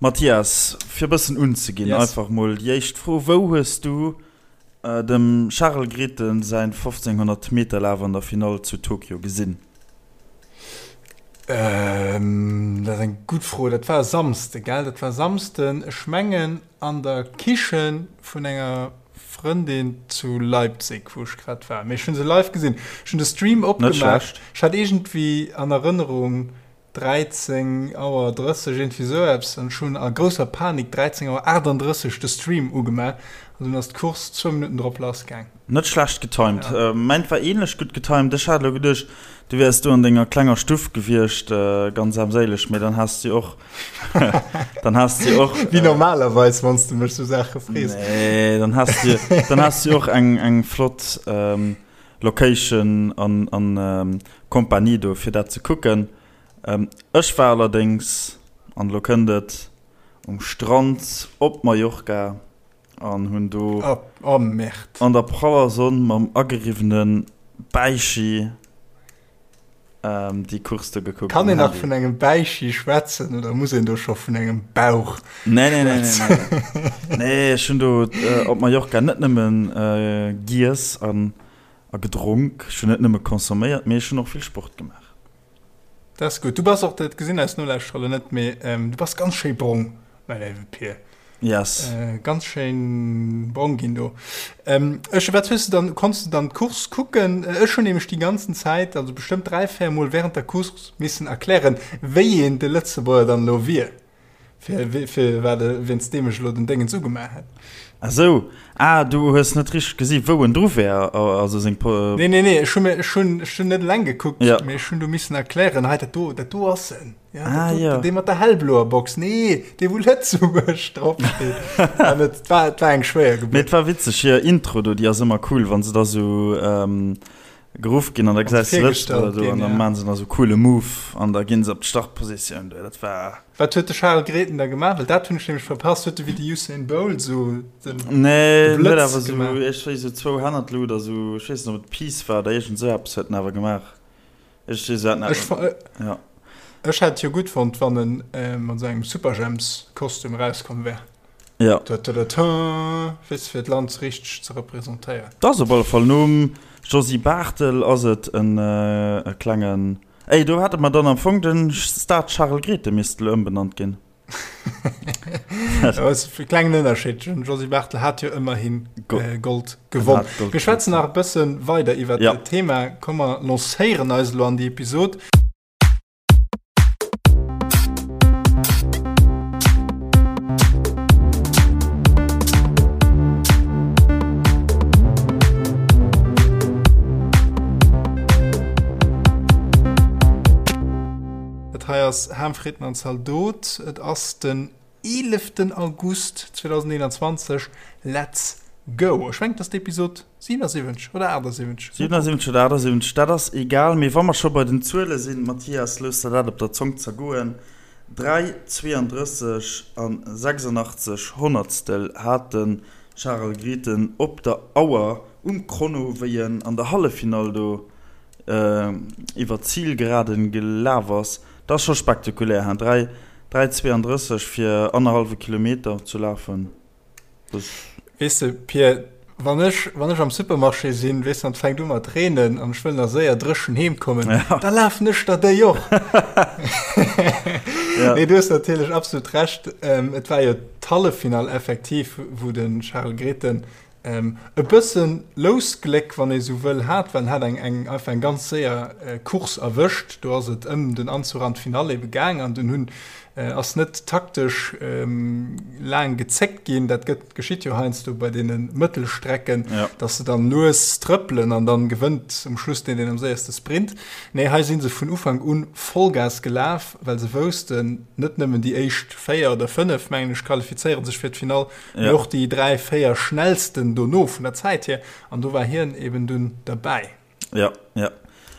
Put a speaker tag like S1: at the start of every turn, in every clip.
S1: Mathias, fir e bëssen unzeginn,
S2: Yes.
S1: einfach mol déi éischt Fro, Wou hues du dem Charel Grethen säin 1500 Meter Laf an der Finall zu Tokio gesinn?
S2: Dat ass eng gutt Fro. Dat war e Samsde, gell? Dat war e Samsden, ech mengen an der Kiche vun enger Frëndin zu Leipzig, wou ech grad war. Mee ech hu se live gesinn. Ech hunn de Stream
S1: Net
S2: opgemaach.
S1: schlecht.
S2: Ech hat iergendwéi an Erënnerung, 13 Auer 30, iergendwéi esou eppes, an ech hunn a grousser Panik 13 Auer 38 de Stream ugemaach an dunn ass d'Course zwou Minutten drop lass gaang.
S1: Net schlecht getimed.
S2: Ja.
S1: Mäint war ähnlech gutt getimed. Ech hat elo geduecht, du wäers do an denger klenger Stuff gewiescht, ganz armséileg, mee dann has du och, dann has du och.
S2: Wéi normalerweis, wann s de mech sou Saache frees.
S1: Nee, dann has du, dann has du och eng, eng flott Location an, an Kompanie do fir dat ze kucken. Ech war allerdéngs, an elo kënnt et, um Strand op Mallorca an hunn do
S2: Oh Merde.
S1: an der praller Sonn mam ageriwwene Bäichi déi Course do gekuckt
S2: Kann
S1: um
S2: een nach
S1: Handy.
S2: vun engem Bäichi schwätzen oder muss een do scho vun engem Bauch
S1: Nee, nee, nee, nee,
S2: schwätzen?
S1: nee. Nee, ech hunn do op Mallorca net nëmmen giess an A gedronk. Ech hunn net nëmme consomméiert, mee ech hunn och vill Sport gemaach.
S2: Dat ass gutt. Du bass och, dat gesinn eis Nolauschterer elo net, mee du bass ganz schéi brong, mäi léiwe Pir.
S1: Yes.
S2: Ganz schéin brong ginn do. Ech, wat hues de dann, konns de dann d'Course kucken? Ech hunn nämlech déi ganzen Zäit, also bestëmmt 3, 4 Mol während der Course missen erklären, wéi een de Lëtzebuerger dann elo wier. Fir, fir wat e, wéinst deem ech elo den Déngens ugemaach hätt.
S1: Ah sou, ah du hues net richteg gesi wou en dru wär, also seng Po.
S2: Nee, nee, nee, ech hu mir, ech hunn, ech hunn net eleng gekuckt,
S1: Ja.
S2: mee ech hunn du missen erklären, hei dat do, dat do ass en, ja, dat
S1: Ah
S2: do,
S1: jo.
S2: dee mat der hellbloer Box, nee, dee wou Lëtzebuerg drop steet. An et war, et war eng schwéier
S1: Mee
S2: Gebuert.
S1: et war witzeg, hir Intro do, déi ass ëmmer cool, wann se da sou geruff ginn an da
S2: Wann se
S1: gesäis de Lëtzebuerger
S2: virgestallt
S1: do
S2: ginn,
S1: an da
S2: ja.
S1: maachen se nach sou coole Move an da ginn se op d'Startpositioun do, dat war.
S2: Wat huet de Charel Grethen da gemaach? Well dat hunn ech nämlech verpasst. Huet e wéi de Usain Bolt esou den
S1: Nee, en huet
S2: Blëtz
S1: awer esou,
S2: gemaach?
S1: ech weess esou zwou Hänn an d'Lut a sou, ech weess net ob et Peace war oder iergend esou eppes huet en awer gemaach. Ech weess et net.
S2: Ech fa
S1: Ja.
S2: Ech hätt jo gutt fonnt, wann en mat esou engem Superjhemps-Kostüm erauskomm wär.
S1: Ja.
S2: Ta-ta-ta-ta, weess de, fir d'Land richteg ze representéieren.
S1: 't ass op alle Fall nom Josy Barthel ass et en e klengen. Ey, do hätte mer dann am Fong den Stade Charel Grethen misst elo ëmbenannt ginn.
S2: Dat ass e klengen Ënnerscheed. Den Josy Barthel hat jo ëmmerhin Gold gewonn. Mir schwätzen nach e bësse weider iwwer dat Thema. Komm mer lancéieren eis elo an déi Episod. Dat hei ass Ham, Fritten an Zaldot. Et ass den 11. August 2021. Let's go! Ech mengen, et ass d'Episod 77 oder 78.
S1: 77 oder 78, dat ass egal. Mee wa mer scho bei den Zuele sinn, Mathias, looss der dat op der Zong zergoen, 3, 32 an 86 Honnertstel hat de Charel Grethen op der Auer um Chrono, wéi en an der Halleffinall do iwwer d'Zilgeraden gelaf ass. Dat ass scho spektakulär, hein? 3, 3,32 fir annerhallwe Kilometer ze lafen, dat.
S2: Weess de, Pir, wann ech, wann ech am Supermarché sinn, weess de, an et fänkt u mat reenen an ech wëll nach séier dréchen heem kommen,
S1: Ja.
S2: da lafen ech der déi och.
S1: Ja.
S2: Nee, du hues natierlech absolut Recht. Et war jo d'Halleffinall effektiv, wou de Charel Grethen E bëssen Lousgléck, wann ee sou wëll, hat, well en hat eng eng einfach eng ganz séier Course erwëscht. Do ass et ëm den Anzuch an d'Finall ebe gaang an dunn hunn ass net taktesch laang gezéckt ginn. Dat gëtt geschitt jo heiansdo bei deene Mëttelstrecken, dass se dann lues trëppelen an dann gewënnt um Schluss deen, deen am séierste sprint. Nee, hei si se vun Ufank un Vollgas gelaf, well se woussten, net nëmmen déi éischt 4 oder 5, mengen ech, qualifizéiere sech fir d'Finall, Mee och déi 3, 4 schnellsten dono vun der Zäit hier, an do war hien eben dunn derbäi.
S1: Jo, jo.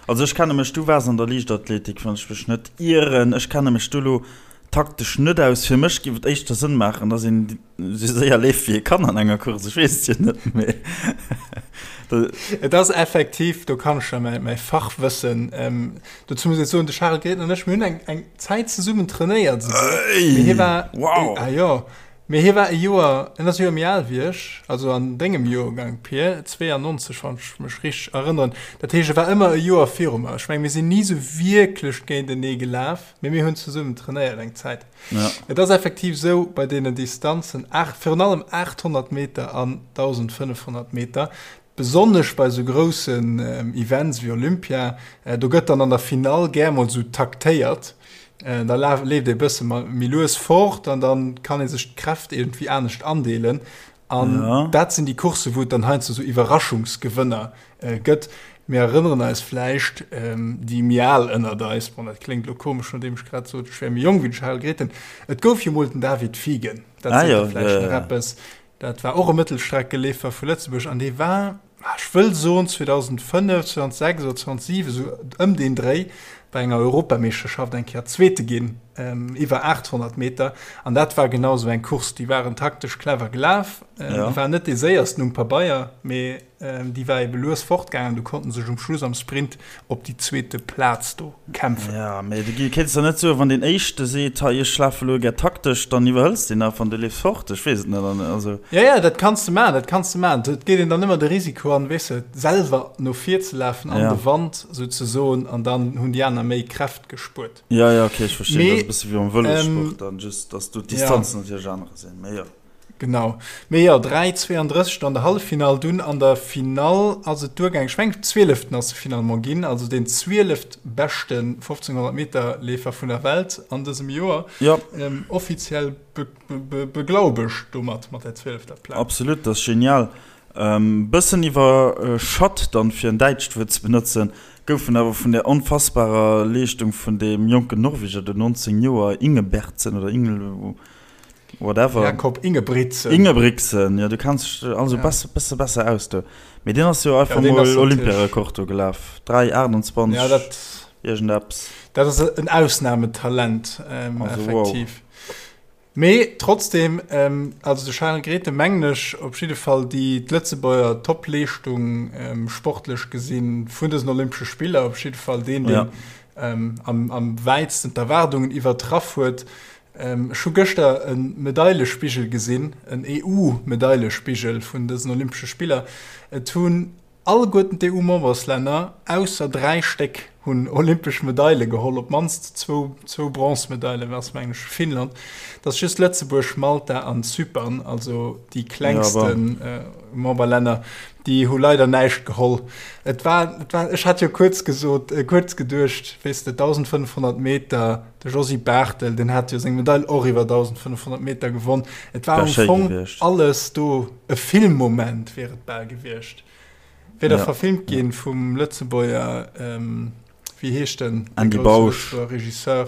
S1: Also ech kenne mech, du waars an der Liichtathletik, wann ech mech net ieren, ech kenne mech do lo taktesch net aus. Fir mech géif et éischter Sënn maachen, dass een esou séier leeft wéi ee kann an enger Course, ech weess et jo net, mee.
S2: Et ass effektiv, do kann ech jo mäi Fachwëssen, dozou muss ech soen, de Charel Grethen an ech, mir hunn eng, eng Zäit zesummen trainéiert esouguer. Mee hie war,
S1: Wow!
S2: Ah jo, mee hie war e Joer, en ass e Joer méi al wéi ech, also an dengem Joergang, Pir, 92, wann ech mech richteg erënneren. Dat heescht, e war ëmmer e Joer viru mer. Ech mengen, mir sinn ni esou wierklech géintenee gelaf, mee mir hunn zesummen trainéiert eng Zäit.
S1: Ja.
S2: Et ass effektiv esou, bei deenen Distanzen, virun allem 800 Meter an 1.500 Meter, besonnesch bei esou groussen Events wéi Olympia, do gëtt dann an der Finall gär mol esou taktéiert. Da leeft ee bësse méi lues fort an da kann ee sech d'Kräft iergendwéi anescht andeelen. An
S1: ja.
S2: dat sinn déi Coursse wou et dann heiansdo sou Iwwerraschungsgewënner äh, gëtt. Mir erënneren eis vläicht ähm, déi méi al ënnert eis, bon dat kléngt lo komesch, nodeem ech grad sot, ech wär méi jonk wéi de Charel Grethen. Et gouf jo mol den David Fiegen, dat
S1: ah,
S2: seet
S1: ja,
S2: der vläicht
S1: ja,
S2: nach
S1: ja.
S2: eppes. Dat war och e Mëttelstreckeleefer vu Lëtzebuerg an dee war, ah, ech wëll soen 2005, 2006 oder 2007, esou ëm deen Dréi, bei enger Europameeschterschaft eng Kéier Zweete ginn iwwer 800 Meter. An dat war genau esou eng Course, déi waren taktesch clever gelaf.
S1: Ja.
S2: Déi waren net déi séiersten um Pabeier, mee déi war ebe lues fortgaangen. Du konnten sech um Schluss am Sprint op déi zweete Plaz do kämpfen.
S1: Ja, mee du kéints der net soen, wann deen Éischte seet, hei ech lafe elo gär taktesch, dann iwwerhëls deen einfach an du leefs fort. Ech weess et net. An also.
S2: Ja, ja, dat kanns de maachen, dat kanns de maachen. Et geet een dann ëmmer de Risiko an, weess de, selwer no vir ze lafen, an
S1: Ja.
S2: de Wand souzesoen, an dann hunn déi aner méi Kräft gespuert.
S1: Ja, ja, okay, ech verstinn.
S2: Mee,
S1: Dat ass e bësse wéi am Vëlossport
S2: ähm,
S1: dann, just dass do
S2: ja.
S1: d'Distanzen natierlech anerer sinn. Mee jo.
S2: Genau. Mee jo, 3,32 an der Halleffinall, dunn an der Finall ass et duergaangen. Ech mengen, Zwieleften ass se finalement ginn, also deen zwieleft-beschte 1500 Meter Leefer vun der Welt an dësem Joer.
S1: Ja.
S2: Ähm, offiziell be Beglaubegt domat, mat der zwielefter Plaz.
S1: Absolut, dat ass genial. Bëssen iwwerschat dann, fir en däitscht Wuert ze benotzen, gouf en awer vun der onfassbarer Leeschtung vun deem jonken Norweger do, 19 Joer, Ingebertsen oder Ingel whatever.
S2: Jakob Ingebrigtsen.
S1: Ingebrigtsen, jo, du kenns dech also
S2: Ja.
S1: bess, bësse besser aus do. Mee deen ass jo
S2: Ja,
S1: einfach
S2: deen
S1: mol
S2: ass natierlech.
S1: Olympiarekord do gelaf, 3,28
S2: Ja, dat,
S1: iergendeppes.
S2: dat ass en Ausnametalent, ähm,
S1: Also wow.
S2: effektiv. Mee trotzdem, also de Charel Grethen, mengen ech, op jidde Fall déi d'Lëtzebuerger Top-Leeschtung sportlech gesinn vun dësen Olympesche Spiller, op jidde Fall deen, deen am am wäitsten d'Erwaardungen iwwertraff huet. Ech hu gëschter e Medailespigel gesinn, en EU-Medailespigel vun dësen Olympesche Spiller. Et hunn Alleguerten d'EU-Memberslänner, ausser 3 Stéck, hunn olympesch Medaile geholl, op d'mannst zwou, zwou Bronzemedaile war es mengen ech fir Finnland. Et ass just Lëtzebuerg, Malta an Zypern, also déi klengste Memberlänner, déi hu leider näischt geholl. Et war, et war, ech hat jo kuerz gesot, kuerz geduecht, weess de, 1.500 Meter, de Josy Barthel, deen hat jo seng Medail och iwwer 1.500 Meter gewonn. Et war
S1: Wär
S2: am
S1: schéi
S2: Fong
S1: gewiescht.
S2: alles do, e Filmmoment wier et bal gewiescht. Wier da
S1: Ja,
S2: verfilmt
S1: ja.
S2: ginn vum Lëtzebuerger, wéi heescht en, dee
S1: Andy
S2: grousse
S1: Bausch.
S2: Lëtzebuerger Regisseur,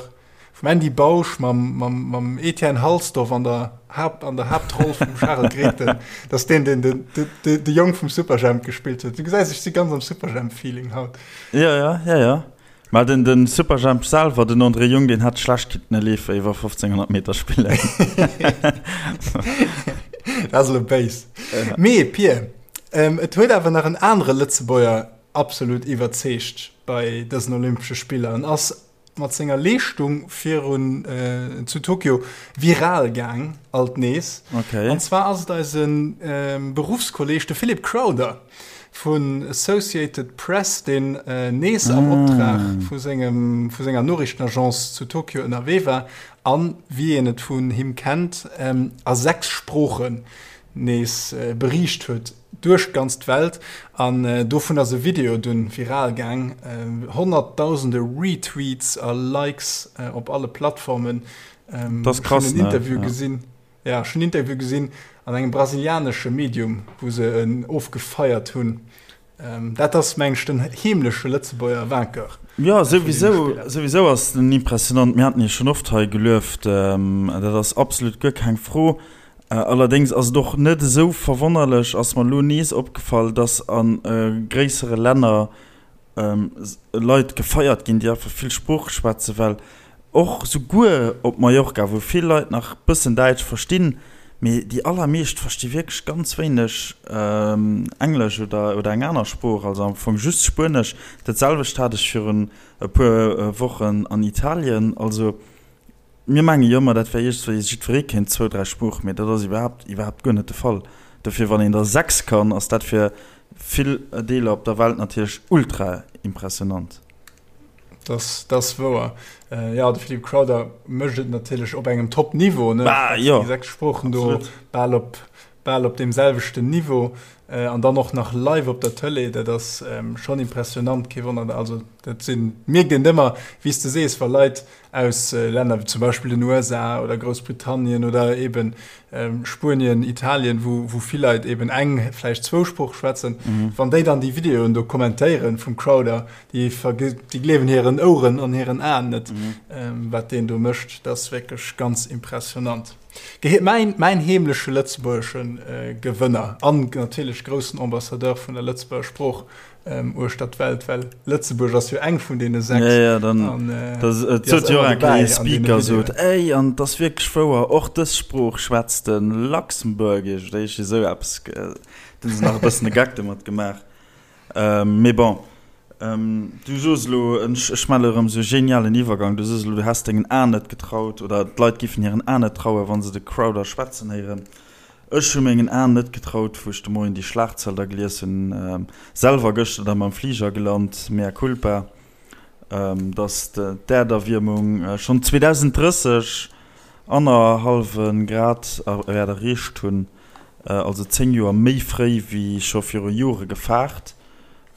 S2: vum Andy Bausch mam, mam, mam Etienne Halsdorf an der Haupt, an der Haaptroll vum Charel Grethen. Dat ass deen, deen den, de, de, de Jong vum Superjhemp gespillt huet. Du gesäis, ech si ganz am Superjhemp-Feeling haut.
S1: Ja, ja, ja, ja. Mä den den Superjhemp selwer, den André Jung, deen hätt schlecht kinnten e Leefer iwwer 1500 Meter spillen.
S2: Dat ass elo béis. Mee Pir, et huet awer nach en anere Lëtzebuerger absolut iwwerzeegt bei dësen Olympesche Spiller. En ass mat senger Leeschtung virun zu Tokio viral gaang, alt nees.
S1: Okay.
S2: An zwar ass et eise Beruffskolleeg, de Philip Crowther. Vun Associated Press, deen nees am Optrag vu sengem, vu senger Noriichtenagence zu Tokio ënnerwee war an, wéi een et vun him kennt, a 6 Sproochen nees beriicht huet duerch d'ganz d'Welt. An dovun ass e Video dunn viral gaang, honnertdausende Retweets a Likes op alle Plattformen.
S1: Dat ass
S2: Ech hunn
S1: krass,
S2: en
S1: ne?
S2: Interview
S1: Ja.
S2: gesinn. Ja, ech hunn en Interview gesinn an engem brasilianesche Medium, wou se en ofgefeiert hunn. Dat ass, meng ech, den heemleche Lëtzebuerger Vainqueur
S1: Jo,
S2: vun deene
S1: souwisou,
S2: Spiller.
S1: souwisou ass en impressionant. Mir haten hie schonn oft hei gelueft, dat ass absolut guer keng Fro. Allerdéngs ass et och net esou verwonnerlech, ass mer elo nees opgefall, dass a gréissere Länner Leit gefeiert ginn, déi einfach vill Sprooche schwätzen, well och souguer op Mallorca, wou vill Leit nach bëssen Däitsch verstinn, Mee déi allermeescht versti wierklech ganz wéineg Englesch oder oder eng aner Sprooch, also am Fong just Spuenesch. Dat selwecht hat ech virun e puer Wochen an Italien. Also mir menge jo ëmmer, dat wär iergendwéi, jiddweree kéint zwou, dräi Sproochen, mee dat ass iwwerhaapt iwwerhaapt guer net de Fall. Dofir, wann een der 6 kann, ass dat fir vill Deeler op der Welt natierlech ultra impressionant.
S2: Das, das wouer. Äh, ja, de Philippe Crowther mécht et natierlech op engem Top-Niveau, ne?
S1: Bah, jo.
S2: Déi 6 Sproochen do bal op, bal op deem selwechten Niveau. Äh, an dann och nach live op der Tëlee, dat ass ähm, schonn impressionant, kee Wonner. Also dat sinn, mierkt een ëmmer, wéi s de sees, wa Leit aus Länner wéi zum Beispill den USA oder Groussbritannien oder eben Spuenien, Italien, wou vill Leit eben eng, vläicht zwou Sprooche schwätzen, wann déi dann déi Videoen do kommentéieren vum Crowther, déi gleewen hiren Oueren an hiren Aen net, wat deen do mécht. Dat ass wierklech ganz impressionant. Mäin heemleche lëtzebuergesche Gewënner an natierlech groussen Ambassadeur vun der Lëtzebuerger Sprooch uechter d'Welt, well Lëtzebuerg ass jo eng vun deene 6.
S1: Ja, ja, dann, an, äh, das, et sot jo eng Kéier Speaker sot, ey, an et ass wierklech wouer, och dës Sprooch schwätzt de Luxembourgish oder iergendwéi esou eppes. Do hu se nach e bëssen e Gag domat gemaach. Ähm, mee bon, ähm, du sos elo, ech, ech maache elo erëm esou e genialen Iwwergang, du sos elo, du häss dengen Aen net getraut oder d'Leit géifen hiren Aen net trauen, wa se de Crowther schwätzen héieren. Ech hu mengen Aen net getraut, wou ech de Moien déi Schlagzeil da gelies hunn, selwer gëschter da mam Fliger gelant, mea culpa, datt d'Äerderwiermung schonn 2030 annerhallwe Grad wäert erreecht hunn, also 10 Joer méi fréi wéi scho viru Jore gefaart.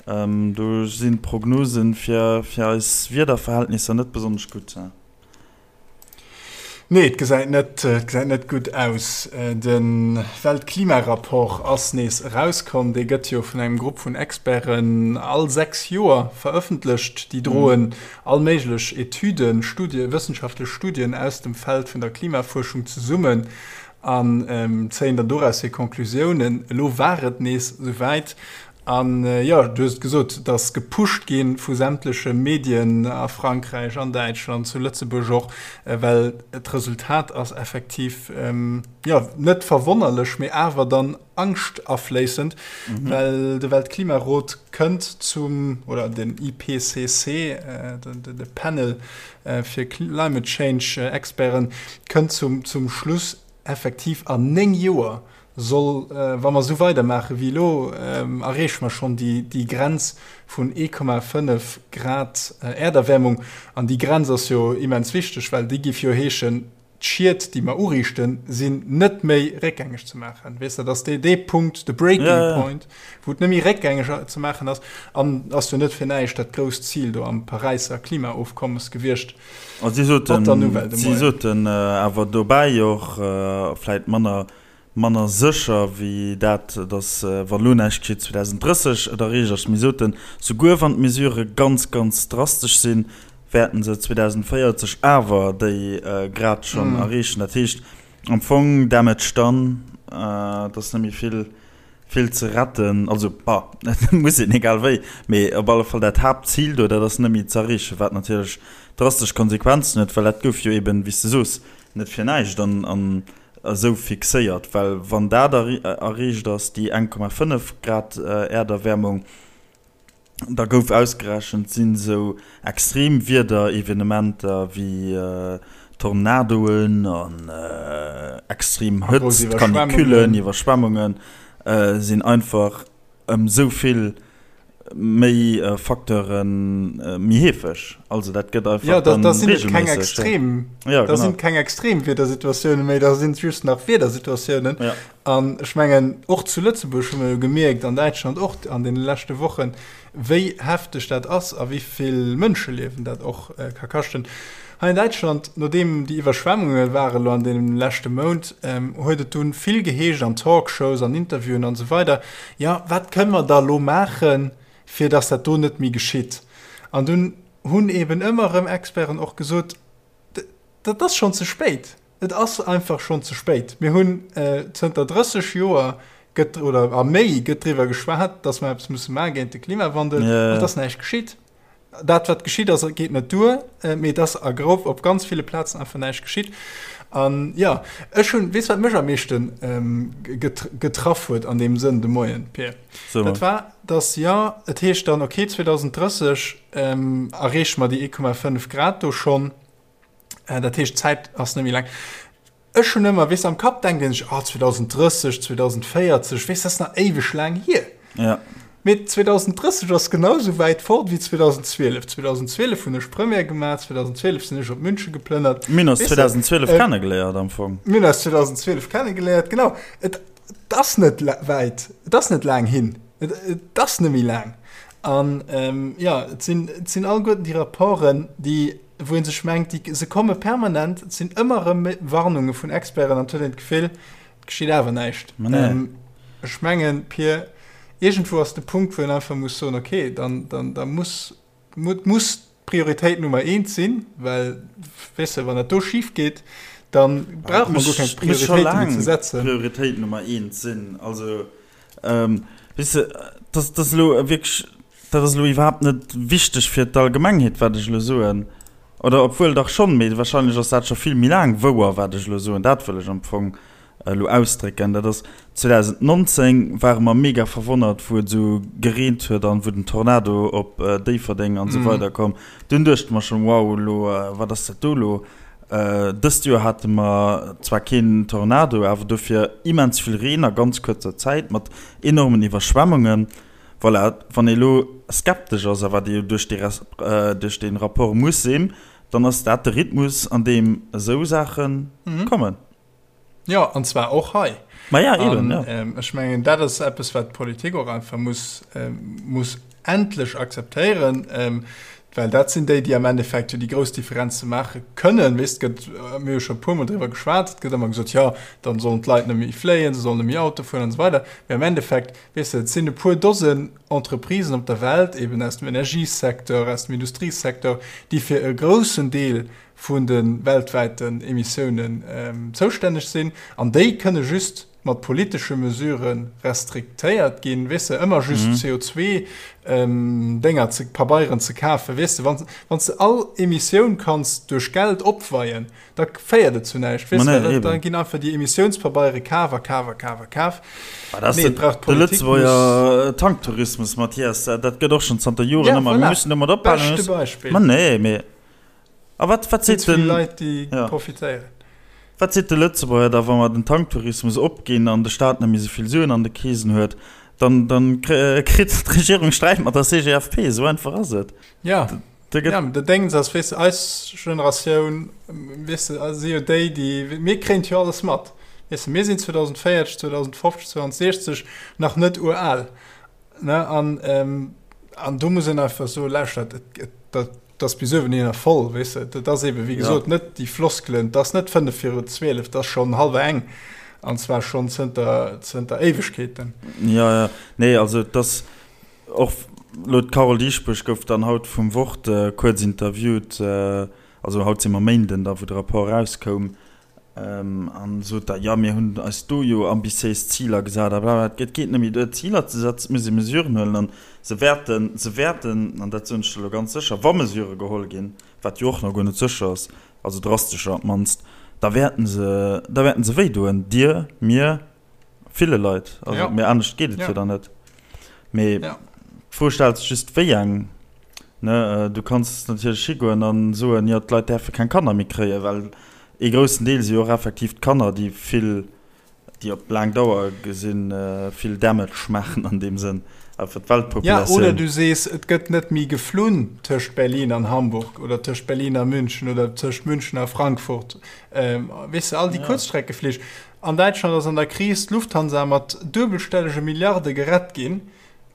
S1: Do sinn d'Prognose fir eis Wiederverhältnisser net besonnesch gutt.
S2: Nee, et gesäit net, et gesäit net gutt aus. De Weltklimarapport ass nees erauskomm. Dee gëtt jo vun engem Grupp vun Experten all 6 Joer verëffentlecht. Déi droen all méiglech Etüden, Studien, wëssenschaftlech Studien aus dem Feld vun der Klimafuerschung zesummen an zéien dann doraus hir Conclusiounen. Elo war et nees esouwäit An jo, du hues et gesot, et ass gepusht gi vu sämtleche Medien a Frankräich, an Däitschland, zu Lëtzebuerg och, well d'Resultat ass effektiv, jo, net verwonnerlech, mee awer dann angschtafléissend, well de Weltklimarot kënnt zum, oder den IPCC, de Panel fir Climate Change Experten, kënnt zum Schluss, effektiv an 9 Joer soll, wa mer esou weidermaache wéi elo, erreeche mer schonn déi Grenz vun 1,5 Grad Äerderwäermung. An déi Grenz ass jo immens wichteg, well déi géif jo heeschen, d'Schied, déi mer uriichten, sinn net méi réckgängeg ze maachen. Weess de, dat ass dee Punkt, de Breaking Point, wou et net méi réckgängeg ze maachen ass. An ass jo net fir näischt dat grousst Zil do am Paräisser Klimaofkommes gewiescht.
S1: A si soten, si soten awer dobäi och, vläit manner, manner sécher wéi dat, datt wa lo näischt geschitt 2030 et erreecht ass, mee soten, souguer wann d'Mesurë ganz, ganz drastesch sinn, wäerten se 2040 awer déi Grad schonn erreechen. Dat heescht am Fong Damage done, et ass net méi vill. Vill ze retten, also bah, et muss een egal wéi, mee op alle Fall dat Haaptzil do, dat ass net méi ze erreechen, wat natierlech drastesch Konsequenzen huet, well dat gouf jo eben, wéi s de soos, net fir näischt an an esou fixéiert, well wann dat erreecht ass, déi 1,5 Grad Äerderwäermung, Da gouf ausgerechent, sinn esou extrem Wiederevenementer wéi Tornadoen an extrem Hëtzt, Canicullen, Iwwerschwemmungen sinn einfach ëm esou vill méi Facteure méi heefeg. Also dat gëtt einfach
S2: dann reegelméisseg. Jo, da sinn et keng extrem Wiedersituatioune méi, da sinn et just nach Wiedersituatiounen. An ech mengen, och zu Lëtzebuerg hu mer jo gemierkt, an Däitschland och an deene leschte Wochen, wéi hefteg dat ass a wéi vill Mënscheliewen dat och ka kaschten. Hei an Däitschland, nodeem déi Iwwerschwemmunge ware lo an deem leschte Mount, huet et dunn vill geheescht an Talkshows, an Interviewen an esou weider, Jo, wat kënne mer da lo maachen, fir datt dat do net méi geschitt? An dunn hunn eeben ëmmer erëm Experten och gesot, Dat ass schonn ze spéit. Et ass einfach schonn ze spéit. Mir hunn zënter 30 Joer gëtt, oder a méi, gëtt driwwer geschwat, datt mer eppes musse maache géint de Klimawandel, an et ass näischt geschitt. Dat, wat geschitt ass, geet net duer, mee et ass a grof op ganz ville Plazen einfach näischt geschitt. An jo, ech hunn, weess wat mech am meeschte getraff huet an deem Sënn de Moien, Pir? Dat war, datt, jo, et heescht dann, okay, 2030 erreeche mer déi 1,5 Grad do schonn, dat heescht, d'Zäit ass net méi laang. Ech hunn ëmmer, weess, am Kapp denkt een sech, ah, 2030, 2040, weess, dat ass nach éiweg laang hier.
S1: Ja.
S2: Mee 2030 ass genau esou wäit fort wéi 2012. 2012 hunn ech Première gemaach, 2012 sinn ech op München geplënnert.
S1: Mir hunn eis 2012 kennegeléiert am Fong.
S2: Mir hunn eis 2012 kennegeléiert, genau. Et ass net wäit, et ass net laang hin, et ass net méi laang. An jo, et sinn, et sinn alleguerten déi Rapporten, déi, wou ee sech mengt, déi, se komme permanent, et sinn ëmmer erëm Warnunge vun Experten an et huet een d'Gefill, Et geschitt awer näischt.
S1: Ma nee.
S2: Ähm, ech mengen, Pir, iergendwou ass de Punkt, wou een einfach muss soen, okay, dann, dann, da muss, mu, muss d'Prioritéit Nummer eent sinn, well, weess de, wann dat do schif geet, dann brauche mer guer keng
S1: Muss scho
S2: Prioritéite méi
S1: laang
S2: ze setzen.
S1: Prioritéit Nummer eent sinn. Also, ähm, weess de, dat, dat ass elo wierklech, dat ass elo iwwerhaapt net wichteg fir d'Allgemengheet, wat ech elo soen. Oder obwuel dach schonn, mee wahrscheinlech ass dat scho vill méi laang wouer, wat ech elo soen. Dat wëll ech am Fong elo ausdrécken. Dat ass, 2019 ware mer mega verwonnert, wou et esou gereent huet an wou den Tornado op Déifferdeng an esou weider komm. Dunn duechte mer schonn, wow, elo, wat ass dat do elo? Dëst Joer hate mer zwar keen Tornado, awer dofir immens vill Reen a ganz kuerzer Zäit mat enormen Iwwerschwemmungen. Voilà, wann ee elo skeptesch ass, a wat ee jo duerch dee duerch dee Rapport muss sinn, dann ass dat de Rhythmus, an deem esou Saache kommen.
S2: Jo, an zwar och hei.
S1: Ma ja, eben,
S2: jo. An ech mengen, dat ass eppes, wat d'Politik och einfach muss, muss endlech akzeptéieren, well dat sinn déi, déi am Endeffekt jo déi grouss Differenze maache kënnen. Weess, et gëtt, mir hu scho e puermol driwwer geschwat, et gëtt ëmmer gesot, jo, dann sollen d'Leit net méi fléien, se sollen net méi Auto fueren an esou weider. Mee am Endeffekt, Weess de, et sinn e puer Dosen Entreprisen op der Welt, eben aus dem Energiesecteur, aus dem Industriesecteur, déi fir e groussen Deel vun de weltwäiten Emissiounen zoustänneg sinn. An déi kënne just mat politesche Mesure restriktéiert ginn. Weess de, ëmmer just CO2-Dénger ze, Pabeieren ze kafen, weess de, wann s de all Emissioun kanns duerch Geld opweien, Da féiert et zu näischt.
S1: Weess de,
S2: da, da ginn einfach déi Emissiounspabeiere kaf a kaf a kaf a kaf.
S1: Ma dat ass de, de Lëtzebuerger Tanktourismus, Mathias. Dat gëtt och schonn zanter Joren
S2: ja,
S1: ëmmer.
S2: Voilà.
S1: Mir mussen domat ophalen.
S2: Beschte Beispill.
S1: Ma nee, mee. A wat, wat seet
S2: den. Leit, déi ja. profitéieren.
S1: Wat seet de Lëtzebuerger da, wa mer den Tanktourismus opginn an de Staat net méi esou vill Suen an de Keesen huet? Dann, dann kritt d'Regierung Sträit mat der CGFP. Esou einfach ass et.
S2: Ja.
S1: Da gëtt.
S2: Ja, de Déngens ass, weess de, eis Generatioun, weess de, si jo déi, déi, mir kréien jo alles mat. Weess de, mir sinn 2040, 2050, 2060 nach net ural, ne? An, an do muss een einfach soen, lauschtert, et, et, dat, dat ass bis uewen hinner voll, weess de. Dat ass eebe, wéi gesot, net déi Floskelen, dat ass net fënnef viru 12, dat ass schonn hallwer eng, an zwar schonn zënter, zënter Éiwegkeeten.
S1: Jo, jo, nee, also et ass, Och elo d'Carole Dieschbourg gouf dann haut vum Wort kuerz interviewt, also haut si mer Méinden da wou de Rapport erauskoum, an sot da, jo mir hunn eis do jo ambitiéis Ziler gesat a bla bla. Et geet net méi duer Ziler ze setzen, et muss ee Mesuren huelen an se wäerten, se wäerten, an dat soen ech der elo ganz sécher, wa Mesurë geholl ginn, wat jo och nach guer net sécher ass, also drastescher op d'mannst, da wäerten se, da wäerten se wéidoen, dir, mir, Ville Leit. Also,
S2: ja.
S1: Mee anescht geet et
S2: ja.
S1: jo dann net. Mee
S2: ja.
S1: d'Fro stellt sech just, wéi eng. Ne, äh, du kanns natierlech higoen an soen, jo, d'Leit däerfe keng Kanner méi kréien, well ee groussen Deel si jo och effektiv d'Kanner, déi vill, déi op laang Dauer gesinn äh, vill Damage maachen an deem Sënn, awer fir
S2: Ja,
S1: d'Weltpopulatioun.
S2: oder du sees, et gëtt net méi geflunn tëscht Berlin an Hamburg oder tëscht Berlin a München oder tëscht München a Frankfurt. Ähm, weess de, all déi
S1: Ja.
S2: Kuerzstreckeflich. An Däitschland ass an der Kris d'Lufthansa mat duebelstellege Milliarde gerett ginn,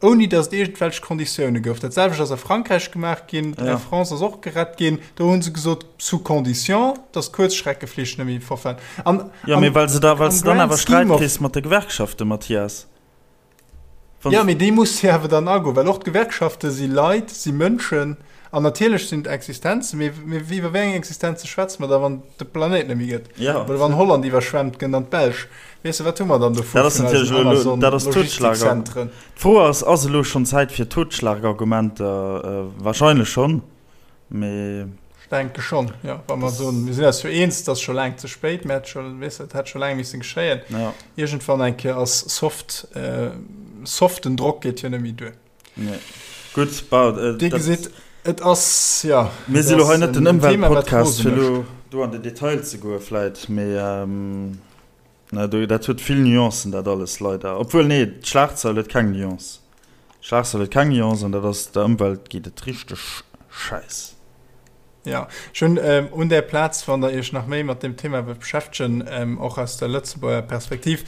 S2: ouni datt et iergendwelch Konditioune gouf. Dat selwecht ass a Frankräich gemaach ginn, d'Air France ass och gerett ginn, do hu se gesot, sous condition, datt d'Kuerzschreckeflich net méi fortfahren.
S1: An, Jo, mee well se da, well s de dann awer Sträit kriss mat de Gewerkschaften, Mathias.
S2: Jo, mee déi muss jo awer dann agoen, well och d'Gewerkschafte si Leit, si Mënschen an natierlech sinn et Existenzen, mee iwwer wéi eng Existenze schwätze mer da, wann et de Planéit net méi gëtt? Oder wann Holland iwwerschwemmt gëtt an d'Belsch? Weess de, wat hu mer dann dovu
S1: vun eisen Amazon-Logistikzentren? D'Fro ass, Ass elo schonn Zäit fir Totschlagargumenter? Wahrscheinlech schonn, mee.
S2: Denke schonn, jo. Wa mer soen, mir sinn eis jo eens, et ass scho laang ze spéit, mä et scho, weess de, et hätt scho laang missen geschéien.
S1: Ja.
S2: Iergendwann eng Kéier ass soft, soften Drock geet jo net méi duer.
S1: Nee. Gutt, bah,
S2: Dir dat. Gesitt, et ass, jo,
S1: Mir si lo hei net den Ëmweltpodcast, fir lo do an den Detail ze goe vläit, mee Na do, dat huet vill Nuancen dat alles, leider. Obwuel, nee, d'Schlagzeil huet keng Nuance. D'Schlagzeil huet keng Nuance an dat ass, der Ëmwelt geet et richteg schäiss.
S2: Jo, ech hunn un där Plaz, wann Der Iech nach méi mat deem Thema wëllt beschäftegen, och aus der Lëtzebuerger Perspektiv,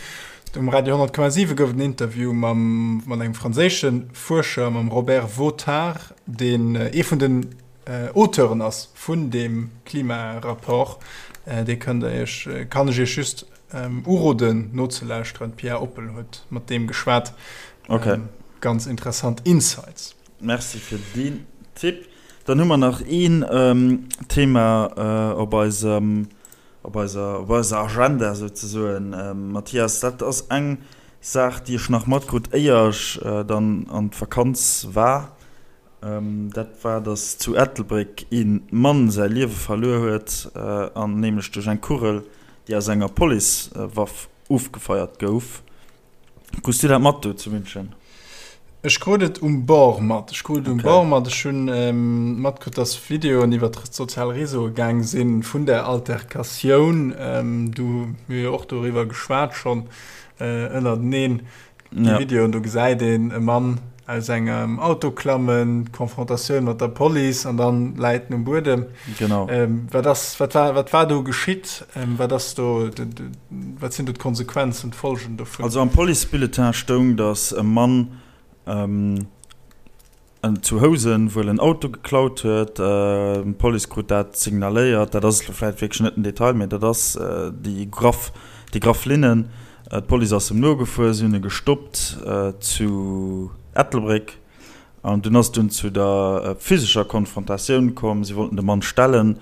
S2: um Radio 100,7 gouf et en Interview mam, mat engem franséische Fuerscher, mam Robert Vautard, deen ee vun den Auteuren ass vun deem Klimarapport, dee kënnt der iech, kann ech iech just uroden nozelauschteren. D'Pia Oppel huet mat deem geschwat.
S1: Okay.
S2: Ganz interessant Insights.
S1: Merci fir deen Tipp. Dann hu mer nach een Thema op eisem, op eiser, op eiser Agenda souzesoen. Mathias, dat ass eng Saach, déi ech nach matkrut, éier ech dann an d'Vakanz war. Dat war, datt zu Ettelbréck ee Mann säi Liewe verluer huet, an nämlech duerch eng Kugel, déi aus enger Policewaff ofgefeiert gouf. Krus du dat mat do zu München?
S2: Ech krut et um Bord mat. Ech krut et um Bord mat. Ech hunn matkritt, datt Videoen iwwer d'sozial Réseaue gaang si vun där Alterkatioun. Du, mir hu jo och doriwwer geschwat schonn ënnerteneen. Déi Videoen, do gesäit een e Mann aus engem Auto klammen, d'Konfrontatioun mat der Police an dann läit en um Buedem.
S1: Genau.
S2: Wat ass, wat war, wat war do geschitt? Wat ass do, wat sinn do d'Konsequenzen, d'Folgen dovun?
S1: Also am Policebulletin stoung, datt e Mann En zu Housen wuel en Auto geklaut huet. D'Police krut dat signaléiert. Dat ass elo vläicht wierklech net den Detail, mee dat ass déi graff, déi graff Linnen. D'Police ass em nogefuer, si hunn e gestoppt zu Ettelbréck an dunn ass et dunn zu der physescher Konfrontatioun komm. Si wollten de Mann stellen.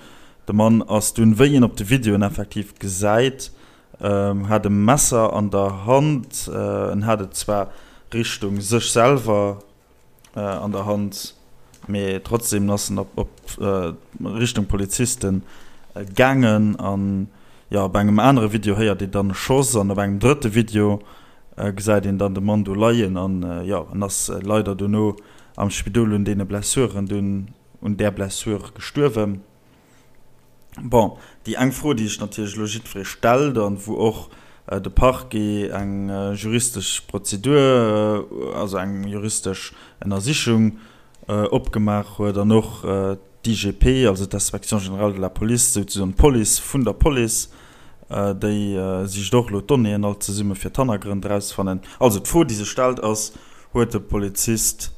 S1: De Mann ass dunn, wéi een op de Videoen effektiv gesäit, hat e Messer an der Hand. En hat et zwar Richtung sech selwer an der Hand, mee trotzdem ass en op Richtung Polizisten gaangen an jo op engem anere Video héiert een dann e Schoss an op engem drëtte Video gesäit een dann de Mann do leien an jo en ass leider dono am Spidol un deene Blessuren dunn un där Blessure gestuerwen. Bon, déi eng Fro, déi sech natierlech elo jiddweree stellt an wou och de Parquet eng juristesch Prozedur, also eng juristesch Ënnersichung opgemaach huet an och d'IGP, also d'Inspection générale de la police, souzesoen d'Police vun der Police, déi sicht och elo d'Donnéeën all zesumme fir d'Hannergrënn erauszefannen. Also d'Fro, déi sech stellt, ass, Huet de Polizist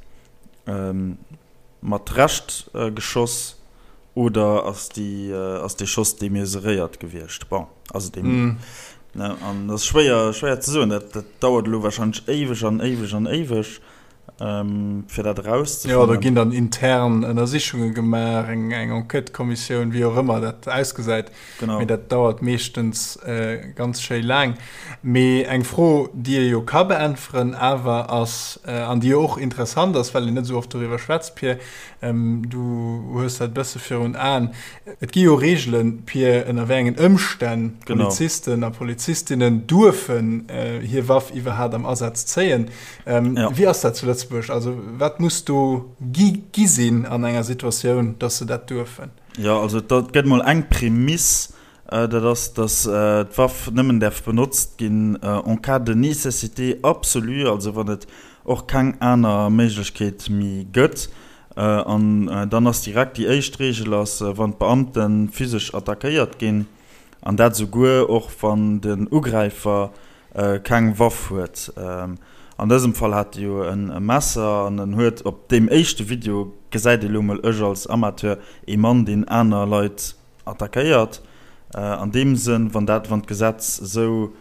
S1: mat Recht geschoss oder ass déi ass dee Schoss demesuréiert gewiescht? Bon, also dee ne an dat ass schwéier schwéier ze soen. Dat dat dauert elo warscheinlech éiweg an éiweg an éiweg fir dat
S2: Jo, do erauszefannen. ginn dann intern Ënnersichunge gemaach, eng eng Enquêtëkommissioun, wéi och ëmmer dat ausgesäit. Genau. Mee dat dauert meeschtens ganz schéi laang. Mee eng Fro, déi ee jo ka beäntweren awer ass, an déi jo och interessant ass, well een net esou oft doriwwer schwätzt, Pir, du hues dat e bësse virun Aen, Et gi jo Reegelen, Pir, ënner wéi engen Ëmstänn Polizisten a Polizistinnen duerfen hir Waff iwwerhaapt am Asaz zéien. Wéi ass dat zu Lëtzebuerg? Also wat muss do gi gi sinn an enger Situatioun, datt se dat duerfen?
S1: Jo, also et gëtt mol eng Prämiss, dat ass, datt d'Waff nëmmen däerf benotzt ginn en cas de nécessité absolue, also wann et och keng aner Méiglechkeet méi gëtt. An dann ass direkt déi éischt Reegel ass, wann d'Beamte physesch attackéiert ginn, an dat esouguer och wann den Ugräifer keng Waff huet. An dësem Fall hat e jo e Messer an en huet op deem éischte Video, gesäit ee lo mol ech als Amateur, ee Mann deen aner Leit attackéiert. An deem Sënn, wann dat, wann d'Gesetz esou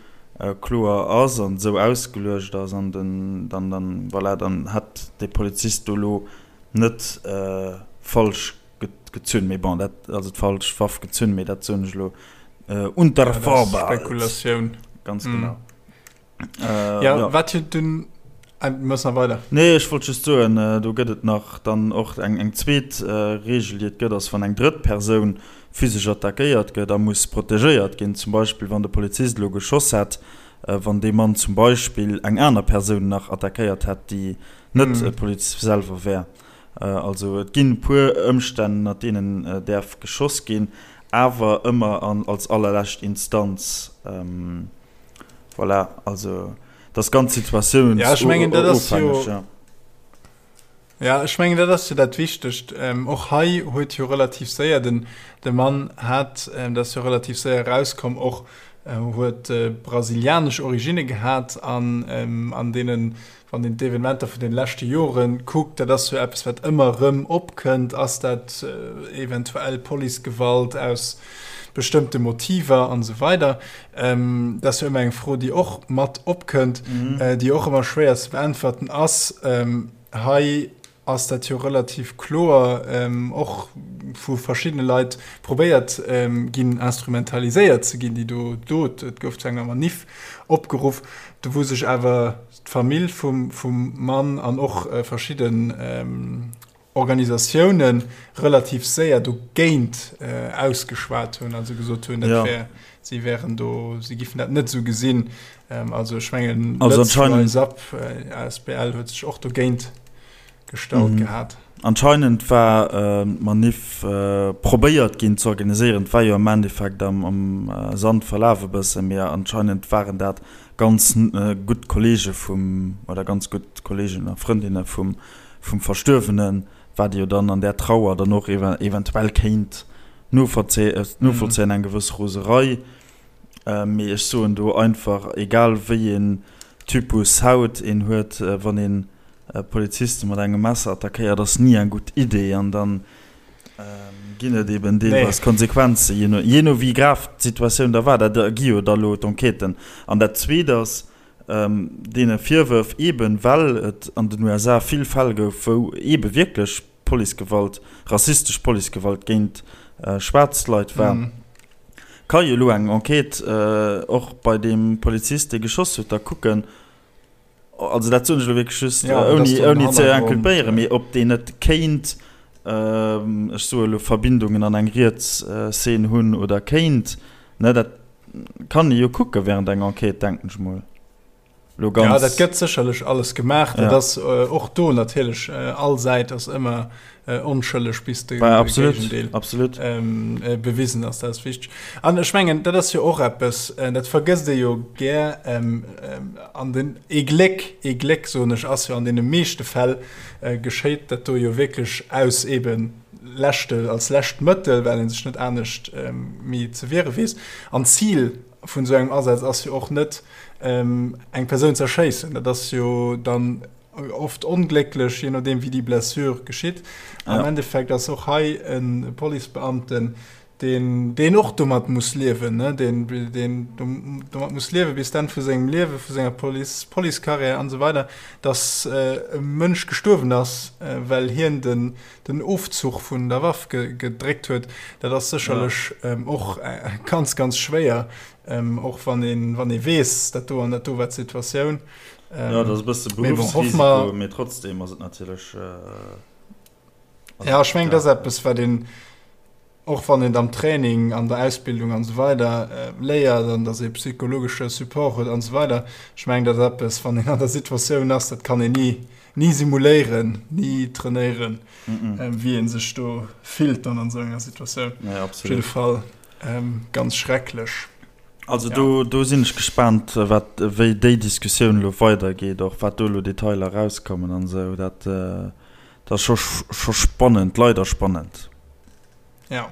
S1: kloer ass an esou ausgeluecht ass an den, dann, dann, voilà, dann hätt dee Polizist do lo net falsch gezunn, mee bon, dat, also d'falsch Waff gezunn, mee dat soen ech elo unter Vorbehalt.
S2: Spekulatioun.
S1: Ganz genau.
S2: Äh, ja, ja. Wat jo dunn. Muss nach weider.
S1: Nee, ech wollt just soen, do gëtt et nach dann och eng eng zweet Reegel, déi et gëtt, ass, wann eng drëtt Persoun physesch attackéiert gëtt a muss protegéiert ginn, zum Beispill wann de Polizist elo geschoss hätt, wann dee Mann zum Beispill eng aner Persoun nach attackéiert hätt, déi net e Polizist selwer wär. Also et ginn e puer Ëmstänn, ënner deenen däerf geschoss ginn, awer ëmmer an als allerlescht Instanz. Voilà, also dat ass ganz
S2: situatiounsofhängeg. Ja, ech mengen, dat ass jo, ja, ech mengen, dat ass jo dat Wichtegt. Och hei huet jo relativ séier den, de Mann hat, dat ass jo relativ séier erauskomm, och huet brasilianesch Originne gehat an an deenen Wann een d'Evenementer vun den leschte Jore kuckt, dat ass jo eppes, wat ëmmer erëm opkënnt, ass dat eventuell Policegewalt aus bestëmmte Motiver an esou weider. Dat ass jo ëmmer eng Fro, déi och mat opkënnt, déi och ëmmer schwéier ze beäntwerten ass. Hei ass dat jo relativ kloer och vu verschiddene Leit probéiert ginn instrumentaliséiert ze ginn, déi do Dot. Et gouf zu enger Maniff opgeruff, do wou sech awer d'Famill vum vum Mann an och verschidden Organisatioune relativ séier dogéint ausgeschwat hunn, also gesot hunn, dat wär, si wären do, si giffen dat net esou gesinn. Also ech mengen,
S1: also anscheinend
S2: Lëtz Rise Up asbl huet sech och dogéint gestallt gehat.
S1: Anscheinend war d'Manif probéiert ginn ze organiséieren, et war jo am Endeffekt am Sand verlaf e bëssen, mee anscheinend waren dat ganz gutt Kollege vum, oder ganz gutt Kollegen a Frëndinne vum Verstuerwenen, wat ee jo dann an där Trauer dann och eventuell kéint novollzéien, eng gewëss Roserei. Mee ech soen do einfach, egal wéi een Typus Haut een huet, wann een Poliziste mat engem Messer attackéiert, ass ni eng gutt Idee. An dann ginn et eben deelweis Konsequenzen, jee no, jee no wéi grav d'Situatioun da war. Dat ergi jo da lo d'Enquêten. An dat Zweet ass, deene Virwërf, eben well et an den USA vill Fäll gouf, wou eebe wierklech Policegewalt, rassistesch Policegewalt géint schwaarz Leit war, ka jo elo eng Enquête och bei deem Polizist, dee geschoss huet, da kucken, also dat soen ech elo wierklech just, ouni, ouni ze inculpéieren, mee ob deen net kéint, ech soe elo, Verbindungen an eng riets Szene hunn oder kéint, ne, dat kann ee jo kucke während enger Enquête, denken ech mol.
S2: Lo ganz. Ja, dat gëtt sécherlech alles gemaach. Dat ass och do natierlech, all Säit ass ëmmer onschëlleg, bis de
S1: Géigendeel absolut.
S2: bewisen ass. Dat ass wichteg. An ech mengen, dat ass jo och eppes, dat vergësst ee jo gär, an den, ee Gléck, ee Gléck, soen ech, ass jo an deene meeschte Fäll geschéit dat do jo wierklech aus eebe leschte, als lescht Mëttel, well ee sech net anescht méi ze wiere weess. An d'Zil vun esou engem Asaz ass jo och net, eng Persoun ze erschéissen. Dat ass jo dann oft onglécklech, je nodeem wéi déi Blessure geschitt. Am Endeffekt ass och hei e Policebeamten, deen, deen och domat muss liewen, ne, deen, deen domat muss liewe bis d'Enn vu sengem Liewe, vu senger Police, Policecarrière an esou weider, datt e Mënsch gestuerwen ass, well hien den, den Ofzuch vun der Waff gedréckt huet, dat ass sécherlech och ganz, ganz schwéier, och wann een, wann ee weess, dat do an dat do war d'Situatioun.
S1: Jo, dat ass e bësse Beruffsrisiko, mee trotzdem ass et natierlech.
S2: Jo, ech mengen, dat ass eppes, wat een, och wann een am Training, an der Ausbildung an esou weider léiert an datt ee psychologesche Support huet an esou weider, ech mengen, dat ass eppes, wann een an der Situatioun ass, dat kann een ni, ni simuléieren, ni trainéieren, wéi ee sech do fillt dann an esou enger Situatioun.
S1: Nee, absolut.
S2: Op jidde Fall ganz schrecklech.
S1: Also do, do sinn ech gespaant, wat, wéi déi Diskussioun elo weidergeet, och wat do elo Detailer erauskommen an esou. Dat, dat ass scho, scho spannend, leider spannend.
S2: Ja.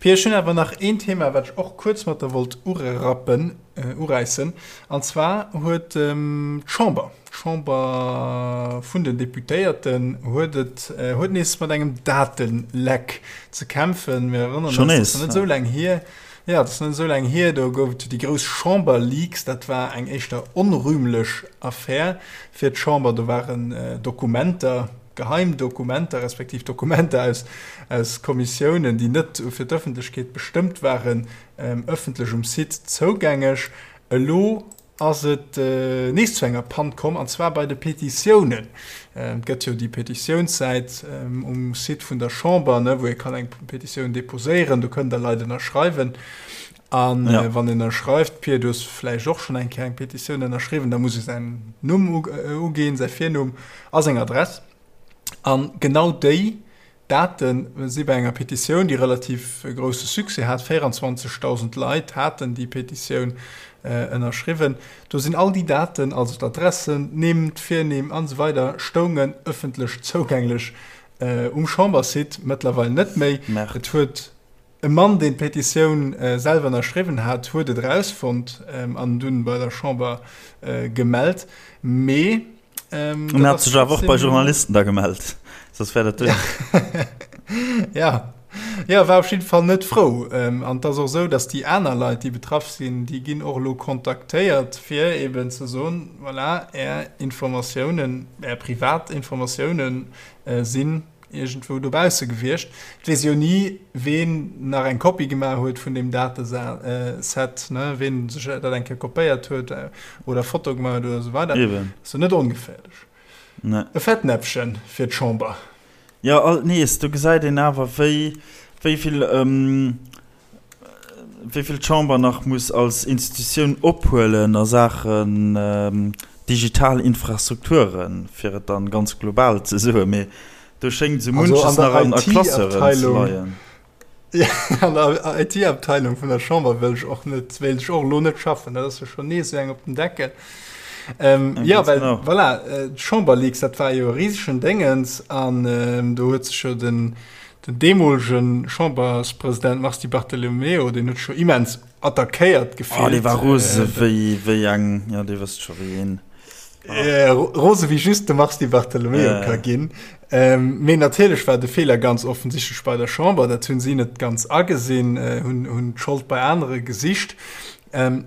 S2: Pia, ech hunn awer nach een Thema, wat ech och kuerz mat der wollt urerappen, uräissen. An zwar huet d'Chamber, d'Chamber vun den Deputéierten huet et, huet nees mat engem Dateleck ze kämpfen. Mir erënneren eis, dat ass net esou laang hier, jo, dat ass net esou laang hier, do gouf et jo déi grouss Chamberleaks. Dat war eng éischter onrühmlech Affär fir d'Chamber. Do waren Dokumenter, Geheim Dokumenter, respektiv Dokumenter aus, aus Kommissiounen, déi net fir d'Ëffentlechkeet bestëmmt waren, ëffentlech um Site zougängeg. Elo ass et nees zu enger Pann komm, an zwar bei de Petitiounen. Et gëtt jo déi Petitiounssäit um Site vun der Chamber, wou ee kann eng Petitioun deposéieren, do kënnen da Leit ënnerschreiwen. A wann een ënnerschreift, Pir, du hues vläicht och schonn eng Kéier eng Petitioun ënnerschriwwen, da muss ee säin Numm uginn, säi Virnumm a seng Adress. A genau déi Date si bei enger Petitioun, déi relativ grousse Succès hat, 24.000 Leit haten déi Petitioun ënnerschriwwen, do sinn all déi Daten, also d'Adressen, d'Nimm, d'Virnimm an esou weider stoungen ëffentlech zougänglech um Chambersite, mëttlerweil net méi. Et huet e Mann, deen d'Petitioun selwer ënnerschriwwen hat, huet et erausfonnt an dunn bei der Chamber gemellt. Mee
S1: En hat sech awer och bei Journalisten da gemellt, soss wär dat duer.
S2: Ja, ja, war op jidde Fall net frou. An et ass och esou, datt déi aner Leit, déi betraff sinn, déi ginn och elo kontaktéiert, fir eeben ze soen, voilà, Är Informatiounen, Är privat Informatiounen sinn iergendwou dobausse gewiescht. Et weess jo ni, ween nach eng Kopie gemaach huet vun deem Dateset, ne, ween sech dat eng Kéier kopéiert huet oder Foto gemaach huet oder esou weider.
S1: Eben.
S2: Ass jo net ongeféierlech.
S1: Ne.
S2: E Fettnäpfchen fir d'Chamber.
S1: Jo, alt nees, do gesäit een awer, wéi, wéi vill, wéi vill d'Chamber nach muss als Institutioun ophuelen a Saachen digital Infrastrukturen, fir et dann ganz global ze soen. Mee do schéngt esou munches nach an a Classeuren ze leien.
S2: An der IT-Abteilung vun der Chamber wëll ech och net, wéilt ech och elo net schaffen. Dat ass jo schonn nees esou eng op den Deckel. Jo, well voilà, d'Chamberleaks, dat war jo e risegen Déngens an do huet sech jo den, Den deemolege Chamberspresident Mars Di Bartolomeo, deen huet sech jo immens attackéiert
S1: gefillt. Oh, dee war rose wéi, wéi eng, jo, Dir wësst scho wéi een.
S2: Rose wéi just de Mars Di Bartolomeo ka ginn. Mee natierlech war de Feeler ganz offensichtlech bei der Chamber. Dat hunn si net ganz agesinn, hunn d'Schold bei anere gesicht.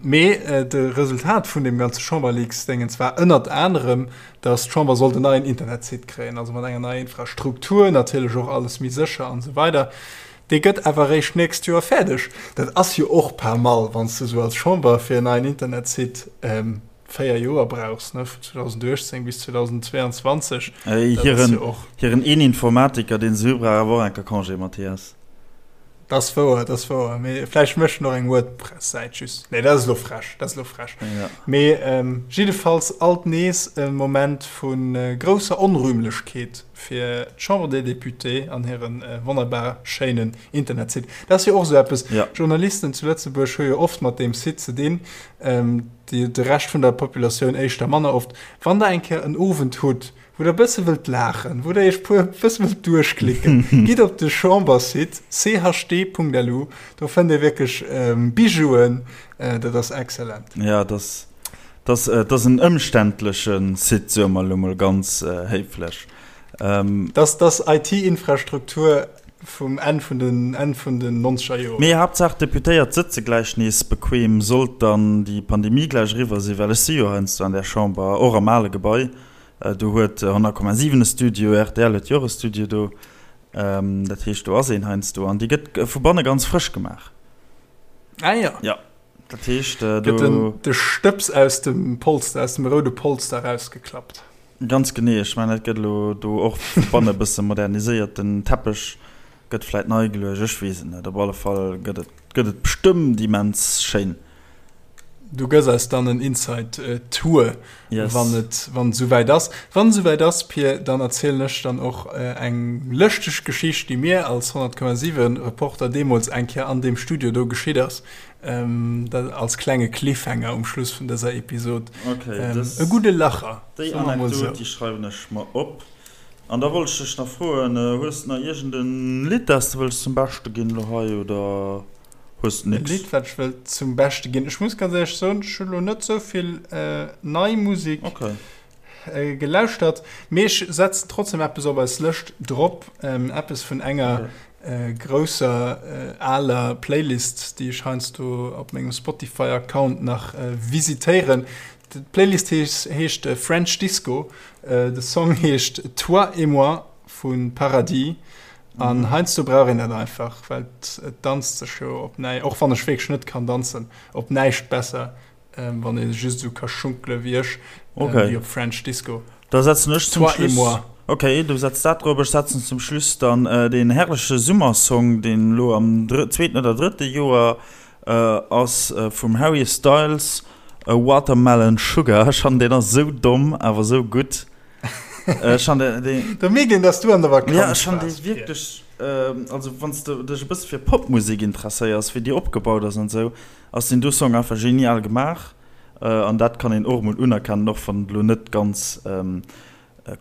S2: Mee de Resultat vun deem ganze Chamberleaks-Déngens war ënnert anerem, datt d'Chamber sollt en neien Internetsite kréien, also mat enger neier Infrastruktur, natierlech och alles méi sécher an esou weider. Dee gëtt awer eréischt d'nächst Joer fäerdeg. Dat ass jo och pas mal, wann s de esou als Chamber fir en neien Internetsite 4 Joer brauchs, ne, vun 2018 bis 2022.
S1: Dat ass jo och. Hiren een Informatiker, deen se hu, brauch awer och enker Congé, Mathias.
S2: Dat ass wouer, dat ass wouer. Mee vläicht mécht en och eng WordPress-Säit just. Nee, dat ass elo frech, dat ass elo frech.
S1: Ja.
S2: Mee ähm, jiddefalls alt nees e Moment vu grousser Onrühmlechkeet fir d'Chambre des Députés an hiren wonnerbar schéinen Internetsite. Dat ass jo och esou eppes,
S1: Ja.
S2: Journalisten zu Lëtzebuerg hu jo oft mat deem Site ze dinn, ähm, déi, de Rescht vun der Populatioun éischter manner oft. Wann Der eng Kéier en Owend hutt, wou der bësse wëllt laachen, wou der iech puer bësse wëllt duerchklicken, gitt op de Chambersite chd.lu, do fënnt dir wierklech Bijouen, dat ass excellent.
S1: Ja, dat ass, dat ass en ëmständleche Site, soe mer elo mol ganz héiflech.
S2: Dat ass IT-Infrastruktur vum Enn vun den Enn vun den nonzeger Joren.
S1: Mee Haaptsaach d'Deputéiert sëtze gläich nees bequem, sollt dann déi Pandemie gläich eriwwer sinn, well ech si jo heiansdo an där Chamber, och am ale Gebai, Do huet 100,7 e Studio, rtl huet jo och e Studio do. Dat heescht, do ass een heiansdo an déi gëtt vu banne ganz frësch gemaach.
S2: Ah jo.
S1: Ja, dat heescht, do.
S2: Gëtt den, de Stëbs aus dem Polster, aus dem roude Polster erausgeklappt.
S1: Ganz genee. Ech mengen, dat gëtt elo do och vu banne e bësse moderniséiert. Den Teppech gëtt vläit nei geluecht, ech weess et net. Op alle Fall gëtt et, gëtt et bestëmmt immens schéin.
S2: Du gëss eis dann en Inside Tour,
S1: yes.
S2: wann et wann et souwäit ass. Wann et souwäit ass, Pir, dann erzielen ech dann och eng lëschteg Geschicht, déi mir als 100,7 Reporter deemools eng Kéier an deem Studio do geschitt ass. Ähm, dat als klenge Cliffhanger um Schluss vun dëser Episod.
S1: Okay,
S2: ähm, dës, e gudde Lacher.
S1: Déi Anekdot, déi schreiwen ech mer op. An da wollt ech dech nach froen, hues de nach iergend en Lidd, dat s de wëlls zum Beschte ginn elo hei, oder? Hues
S2: de nix? E Lidd wat ech wëll zum Beschte ginn? Ech muss ganz éierlech soen, ech hu lo net sou vill nei Musek gelauschtert, mee ech setzen trotzdem eppes op eis Lëscht drop, eppes vun enger grousser aler Playlist, déi ech heiansdo op mengem Spotify Account nach visitéieren. D'Playlist heescht French Disco, de Song heescht Toi et moi vu Paradis. An heiansdo brauch een dat einfach, well et danzt sech jo op näi, och wann ech wierklech net kann danzen, op näischt besser. Wann ee just esou ka schunkele wéi ech, wéi op French Disco.
S1: Da setzen ech zum Schluss. Toi et moi. Ok, du setz dat drop, ech setzen zum Schluss dann deen herrleche Summersong, deen elo am zweeten oder drëtte Joer ass, vum Harry Styles, Watermelon Sugar. Ech fannen deen ass esou domm, awer esou gutt. Ech fannen deen.
S2: Da mierkt een, dass du an der Vakanz
S1: waars. Ja, ech fannen dee wierklech, also wann s de dech e bësse fir Popmusek interesséiers, wéi déi opgebaut ass an esou, Ass deen do Song einfach genial gemaach an dat kann een och emol unerkennen, och wann et elo net ganz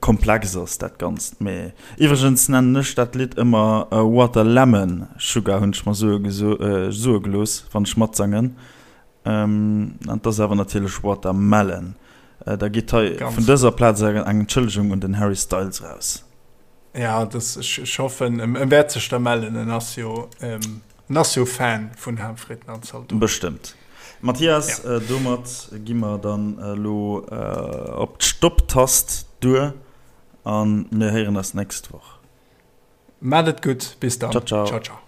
S1: komplex ass dat Ganzt. Mee iwwregens nennen ech dat Lidd ëmmer Water Lemon Sugar, hunn ech mer soe gelooss, wann ech matsangen. An et ass awer natierlech Water Melon. Da geet hei vun dëser Plaz eng Entschëllegung un den Harry Styles raus.
S2: Ja, ech hoffen en wäert sech da mellen, en ass jo. En ass jo Fan vun Haamfritten an Zaldoten.
S1: Bestëmmt. Mathias, ja. Domat gi mer dann elo op d'Stopp-Tast duer a mir héieren eis d'nächst Woch.
S2: Maat et gutt, bis dann.
S1: Ciao, ciao.
S2: Ciao, ciao.